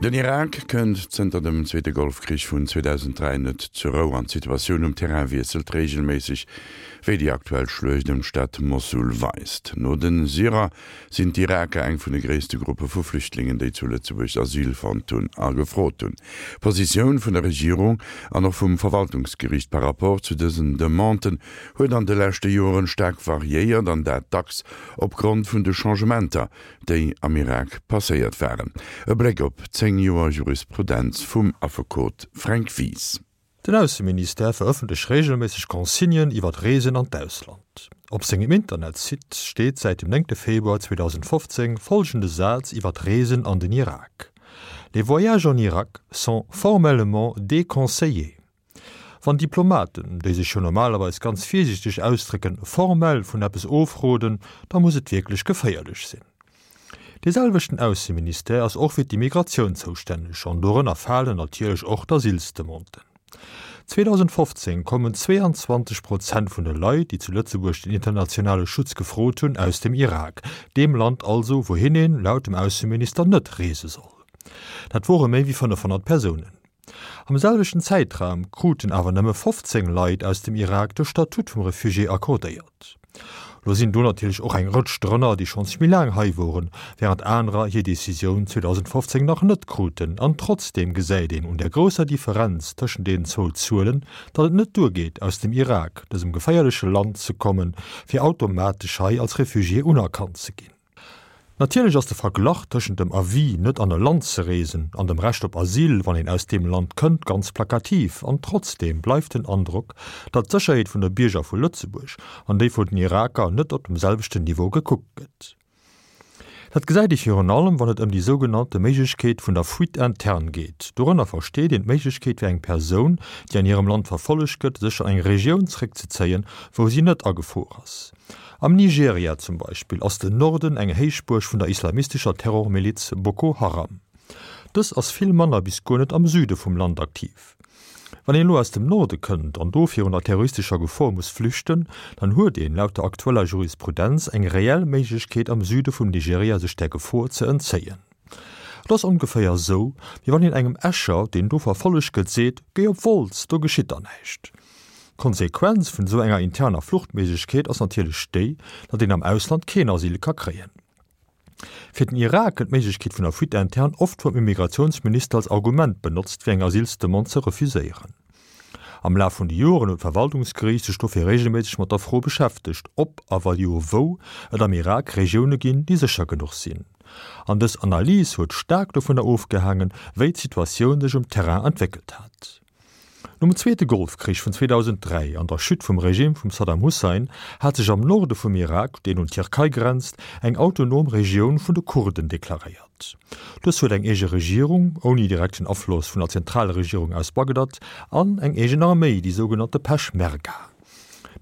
Den Irak kënnt zënter dem zweete Golfkrich vun 2003 net zur Rou an d'Situatioun um Terrain wiesselt reegelméisseg, wéi déi aktuell Schluecht ëm d'Stad Mossul weist. No de Syrer sinn d'Iraker eng vun de gréisste Gruppe vu Flüchtlingen, déi zu Lëtzebuerg Asyl fonnt hunn a gefrot hunn. D'Positioun vun der Regierung an och vum Verwaltungsgeriicht par rapport zu dësen Demanden huet an de leschte Joren staark variéiert an dat dacks opgrond vun de Changementer, déi am Irak passéiert waren. E Bléck op 10 Joer Jurisprudenz vum Affekot Fränk Wies. Den Ausseministère verëffentlecht reegelméisseg Consignen iwwer Reesen an d'Ausland. Op sengem Internetsite steet säit dem 9 Februar 2015 follgende Saz iwwer d'Reesen an den Irak, Les voyages en Irak sont formellement déconseillés. Wann Diplomaten, déi sech jo normalerweis ganz virsiichteg ausdrécken, formell vun eppes ofroden, da muss et wierklech geféierlech sinn. Dee selwechten Ausseministère ass och fir d'Immigratioun zoustänneg an dorënner falen natierlech och d'Asylsdemanden. 2015 kommen 22 Prozent vun de Leit, déi zu Lëtzebuerg den internationale Schutz gefrot hunn, aus dem Irak, deem Land also, wouhin een, laut dem Ausseminister, net reese soll. Dat wore méi wéi 500 Persounen. Am selwechten Zäitraum kruten awer nëmme 15 Leit aus dem Irak de Statut vum Refugié accordéiert. Lo sinn do natierlech och eng Rëtsch drënner, déi schonns méi laang hei woren, wärend anerer hir Decisioun 2015 nach net kruten. An trotzdeem gesäit een un der grousser Differenz tëschent deenen zwou Zuelen, datt et net duergeet, aus dem Irak, dësem geféierleche Land, ze kommen, fir automatesch hei als Refugié unerkannt ze ginn. Natierlech ass de Verglach tëschent dem Avis, net an e Land ze reesen, an dem Recht op Asyl, wann een aus deem Land kënnt, ganz plakativ. An trotzdeem bleift den Androck, datt d'Sécherheet vun de Bierger vu Lëtzebuerg an déi vun den Iraker net op dem selwechten Niveau gekuckt gëtt. Dat gesäit ee virun allem, wann et ëm déi sougenannte Méiglechkeet vun der Fuite interne geet. Dorënner versteet een d'Méiglechkeet fir eng Persoun, déi an hirem Land verfollegt gëtt, sech an eng Regioun zréckzezéien, wou si net a Gefor ass. Am Nigeria zum Beispill ass den Norden eng Héichbuerg vun der islamistescher Terrormiliz Boko Haram. Dës ass vill manner bis guer net am Süde vum Land aktiv. Wann een elo aus dem Norde kënnt an do virun der terroristescher Gefor muss flüchten, dann huet een laut der aktueller Jurisprudenz eng reell Méiglechkeet am Süde vum Nigeria sech där Gefor ze entzéien. Et ass ongeféier esou, wéi wann een engem Escher, deen do verfollegt gëtt, seet, Géi op Wolz, do geschitt der näischt. D'Konsequenz vun esou enger interner Fluchtméiglechkeet ass natierlech déi, datt een am Ausland keen Asyl ka kréien. Fir den Irak gëtt d'Méiglechkeet vun der Fuite interne oft vum Immigratiounsminister als Argument benotzt, fir eng Asylsdemande ze refuséieren. Am Laf vun de Joren huet d'Verwaltungsgeriicht sech dofir reegelméisseg mat der Fro beschäftegt, ob a wa jo wou et am Irak Regioune ginn, déi sécher genuch sinn. An dës Analys huet staark dovunner ofgehaangen, wéi d'Situatioun sech um Terrain entwéckelt hat. Nom Zweete Golfkrich vun 2003 an der Chute vum Regime vum Saddam Hussein hat sech am Norde vum Irak, deen un d'Tierkei grenzt, eng autonom Regioun vun de Kurden deklaréiert. Dës huet eng eege Regierung, ouni direkten Afloss vun der Zentralregierung aus Bagdad, an eng eegen Arméi, déi sougenannte Peschmerga.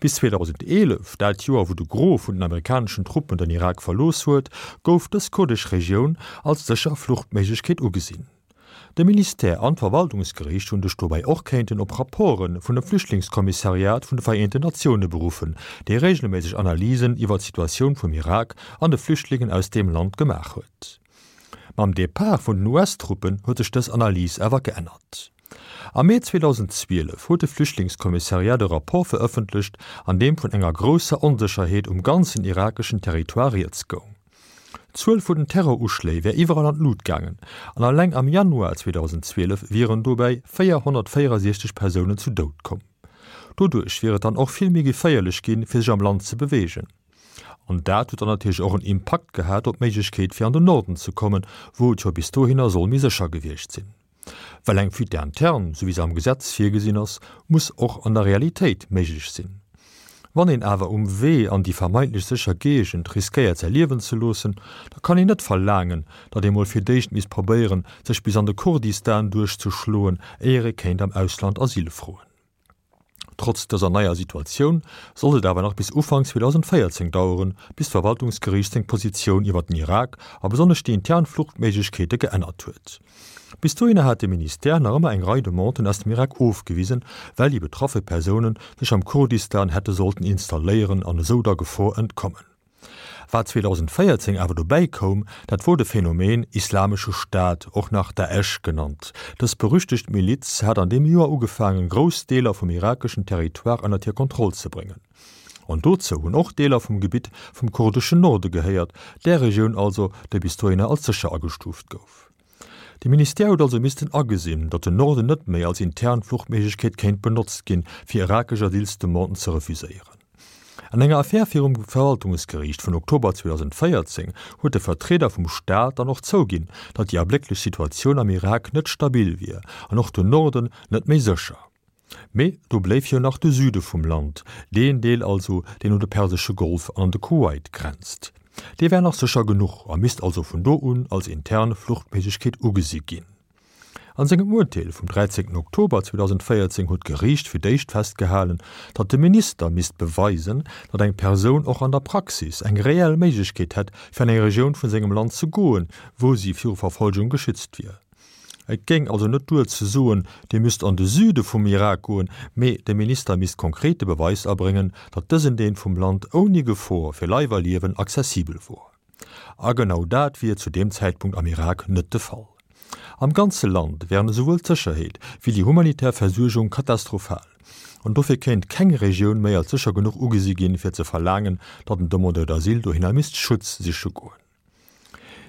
Bis 2011, dat Joer wou de Gros vun den amerikaneschen Truppen den Irak verlooss huet, gouf dës kurdesch Regioun als sécher Fluchtméiglechkeet ugesinn. De Ministère an d'Verwaltungsgeriicht hunn sech dobäi och kéinten op Rapporte vun dem Flüchtlingskommissariat vun de Vereenten Natioune beruffen, dee reegelméisseg Analysen iwwer d'Situatioun vum Irak an de Flüchtlingen aus deem Land gemaach huet. Mam Depart vun den US-Truppen huet sech dës Analys awer geännert. Am Mee 2012 huet de Flüchtlingskommissariat e Rapport verëffentlecht, an deem vun enger grousser Onsécherheet um ganzen irakeschen Territoire rieds goung. D'Zuel vun den Terroruschléi wär iwwerall an d'Lut gaangen an alleng am Januar 2012 wieren dobäi 464 Persounen zu Doud komm. Doduerch wier et dann och vill méi geféierlech ginn, fir sech am Land ze beweegen. An dat huet dann natierlech och en Impakt gehat op d'Méiglechkeet fir an den Norden ze kommen, wou et jo bis dohinner soll méi sécher gewiescht sinn. Well eng Fuite interne, sou wéi se am Gesetz virgesinn ass, muss och an der Realitéit méiglech sinn. Wann een awer um Wee an déi vermeintlech sécher Géigend riskéiert säi Liewen ze loossen, da kann een net verlaangen, datt ee mol fir d'éischt misst probéieren, sech bis an de Kurdistan duerchzeschloen, éier ee kéint am Ausland Asyl froen. Trotz dëser neier Situatioun sollt et awer nach bis Ufank 2014 daueren, bis d'Verwaltungsgeriicht seng Positioun iwwer den Irak a besonnesch déi intern Fluchtméiglechkeete geännert huet. Bis dohinner hat de Ministère nach ëmmer eng Rei Demanden aus dem Irak ofgewisen, well déi betraffe Persounen sech am Kurdistan hätte sollten installéieren an esou der Gefor entkommen. Wat 2014 awer dobäi koum, dat wor de Phänomen Islamesche Staat, och nach Daesh genannt. Dës berüchtegt Miliz hat an deem Joer ugefaangen, grouss Deeler vum irakeschen Territoire ënnert hir Kontroll ze bréngen. An dozou hunn och Deeler vum Gebitt vum kurdeschen Norde gehéiert, där Regioun also, déi bis dohinner als sécher agestuuft gouf. De Ministère huet also missten agesinn, datt den Norden net méi als intern Fluchtméiglechkeet kéint benotzt ginn, fir irakesch Asylsdemanden ze refuséieren. An enger Affär virum Verwaltungsgeriicht vun Oktober 2014 huet de Vertrieder vum Staat dann och zouginn, datt déi ablécklech Situatioun am Irak net stabil wier an och den Norden net méi sécher. Mee do bléif jo nach de Süde vum Land, deen Deel also, deen un de Persesche Golf an an de Kuwait grenzt. Dee wär nach sécher genuch a misst also vun do un als intern Fluchtméiglechkeet ugesi ginn. An sengem Urteel vum 13 Oktober 2014 huet d'Geriicht fir d'éischt festgehalen, datt de Minister misst beweisen, datt eng Persoun och an der Praxis eng reell Méiglechkeet hätt, fir an eng Regioun vun sengem Land ze goen, wou si viru Verfolgung geschützt wier. Et géing also net duer ze soen, Dir müsst an de Süde vum Irak goen, mee de Minister misst konkret de Beweis erbréngen, datt dësen Deel vum Land ouni Gefor fir Leif a Liewen accessibel wor. A genau dat wier zu deem Zäitpunkt am Irak net de Fall. Am ganze Land wären esouwuel d'Sécherheet wéi déi humanitär Versuergung katastrophal. An dofir kéint keng Regioun méi als sécher genuch ugesi ginn, fir ze verlaangen, datt en Demandeur d'asile dohinner misst Schutz siche goen.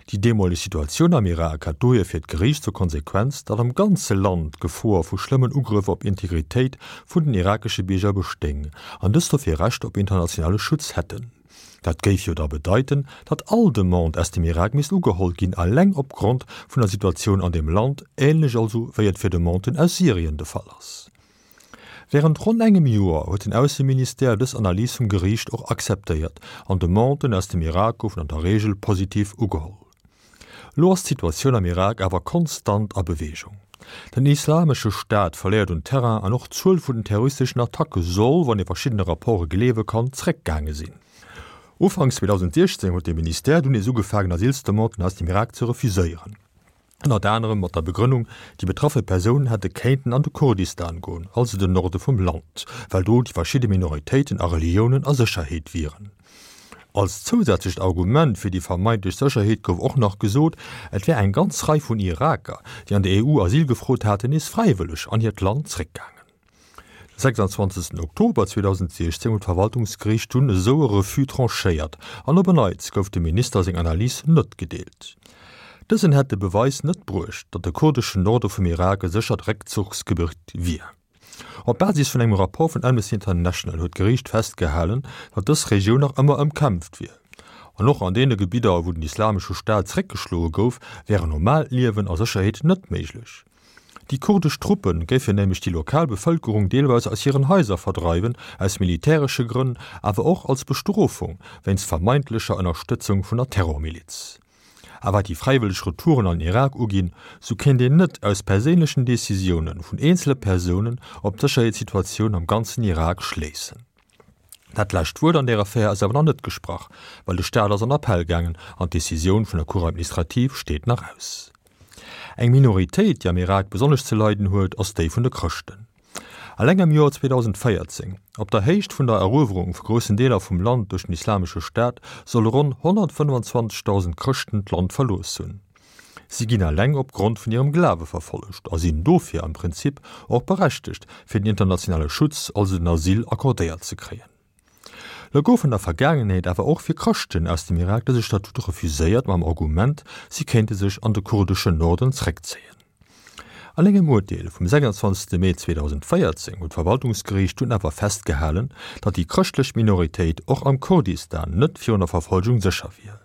Déi deemoleg Situatioun am Irak hat dohier fir d'Geriicht zur Konsequenz, datt am ganze Land d'Gefor vu schlëmmen Ugrëff op Integritéit vun den irakesche Bierger bestéing an dës dofir Recht op internationale Schutz hätten. Dat géif jo da bedeiten, datt all Demande aus dem Irak misst ugeholl ginn, eleng opgrond vun der Situatioun an deem Land, änlech also wéi et fir Demanden aus Syrien de Fall ass. Wärend ronn engem Joer huet den Ausseministère dës Analys vum Geriicht och akzeptéiert an Demanden aus dem Irak goufen an der Reegel positiv ugeholl. Elo ass d'Situatioun am Irak awer konstant a Beweegung. Den Islamesche Staat verléiert un Terrain an och d'Zuel vun den terroristeschen Attacke soll, wann ee verschiddene Rapporte gleewe kann, zeréckgaange sinn. Ufanks 2016 huet de Ministère dunn nees ugefaangen Asylsdemanden aus dem Irak ze refuséieren. Ënnert anerem mat der Begrënnung, déi betraffe Persounen hätte kéinten an de Kurdistan goen, also den Norde vum Land, well do déi verschidde Minoritéiten a Reliounen a Sécherheet wieren. Als zousätzlecht Argument fir déi vermeintlech Sécherheet gouf och nach gesot, et wär eng ganz Rei vun Iraker, déi an der EU Asyl gefrot haten, nees fräiwëlleg an hiert Land zréckgaangen. De 26 Oktober 2016 huet d'Verwaltungsgeriicht dunn esou e Refus tranchéiert an op en Neits gouf dem Minister seng Analys net gedeelt. Dësen hätt de Beweis net bruecht, datt de kurdeschen Norde vum Irak e séchert Réckzuchsgebitt wier. Op Basis vun engem Rapport vun Amnesty International huet d'Geriicht festgehalen, datt dës Regioun nach ëmmer ëmkämpft wier. An och an deene Gebidder, wou den Islamesche Staat zeréckgeschloe gouf, wär en normaalt Liewen a Sécherheet net méiglech. Déi kurdesch Truppe géifen nämlech déi lokal Bevëlkerung deelweis aus hiren Haiser verdreiwen, aus militäresche Grënn, awer och als Bestrofung wéinst vermeintlecher Ënnerstëtzung vun der Terrormiliz. A wat déi fräiwëlleg Retouren an den Irak uginn, sou kéint een net aus perséinlechen Decisioune vun eenzele Persounen op d'Sécherheetssituatioun am ganzen Irak schléissen. Dat lescht Wuert an där Affär ass awer nach net gesprach, well de Staat ass an Appell gaangen an d'Decisioun vun der Cour administrative steet nach aus. Eng Minoritéit, déi am Irak besonnesch ze leiden huet, ass déi vun de Chrëschten. Eleng am Joer 2014, op der Héicht vun der Eruewerung vu groussen Deeler vum Land duerch den Islamesche Staat, solle ronn 125.000 Chrëschten d'Land verlooss hunn. Si ginn eleng op Grond vun hirem Glawe verfollegt a sinn dofir am Prinzip och berechtegt, fir den internationale Schutz, also den Asyl, accordéiert ze kréien. Lo gouf an der Vergaangenheet awer och fir Chrëschten aus dem Irak dëse Statut refuséiert mam Argument, si kéinte sech an de kurdeschen Norden zréckzéien. An engem Urteel vum 26 Mee 2014 huet d'Verwaltungsgeriicht dunn awer festgehalen, datt déi chrëschtlech Minoritéit och am Kurdistan net virun der Verfolgung sécher wier.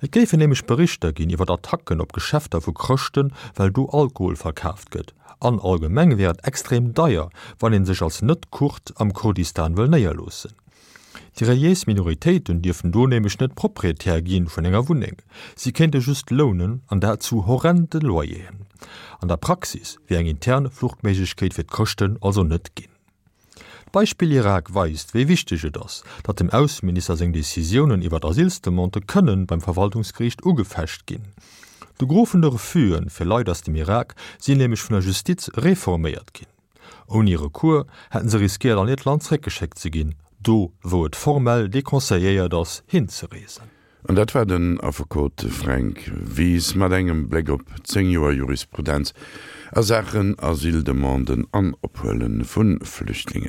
Et géifen nämlech Berichter ginn iwwer Attacken op Geschäfter vu Chrëschten, well do Alkohol verkaaft gëtt. An allgemeng wär et extrem deier, wann ee sech als Net-Kurd am Kurdistan wëll néierloossen. Déi reliéis Minoritéiten dierften do nämlech net Proprietär gi vun enger Wunneng. Si kéinte just lounen, an dat zu horrende Loyeren. An der Praxis wier eng intern Fluchtméiglechkeet fir d'Chrëschten also net ginn. D'Beispill Irak weist, wéi wichteg et ass, datt dem Ausseminister seng Decisiounen iwwer Asylsdemandë kënnen beim Verwaltungsgeriicht ugefecht ginn. De Gros vun de Refusë fir Leit aus dem Irak sinn nämlech vun der Justiz reforméiert ginn. Ouni Recours hätten se riskéiert an hiert Land zréckgeschéckt ze ginn. Do wou et formell deconseilléiert ass hinzereesen. An dat war den Affekot Fränk Wies mat engem Bléck op 10 Joer Jurisprudenz a Saachen Asyldemanden an Ophuele vu Flüchtlingen.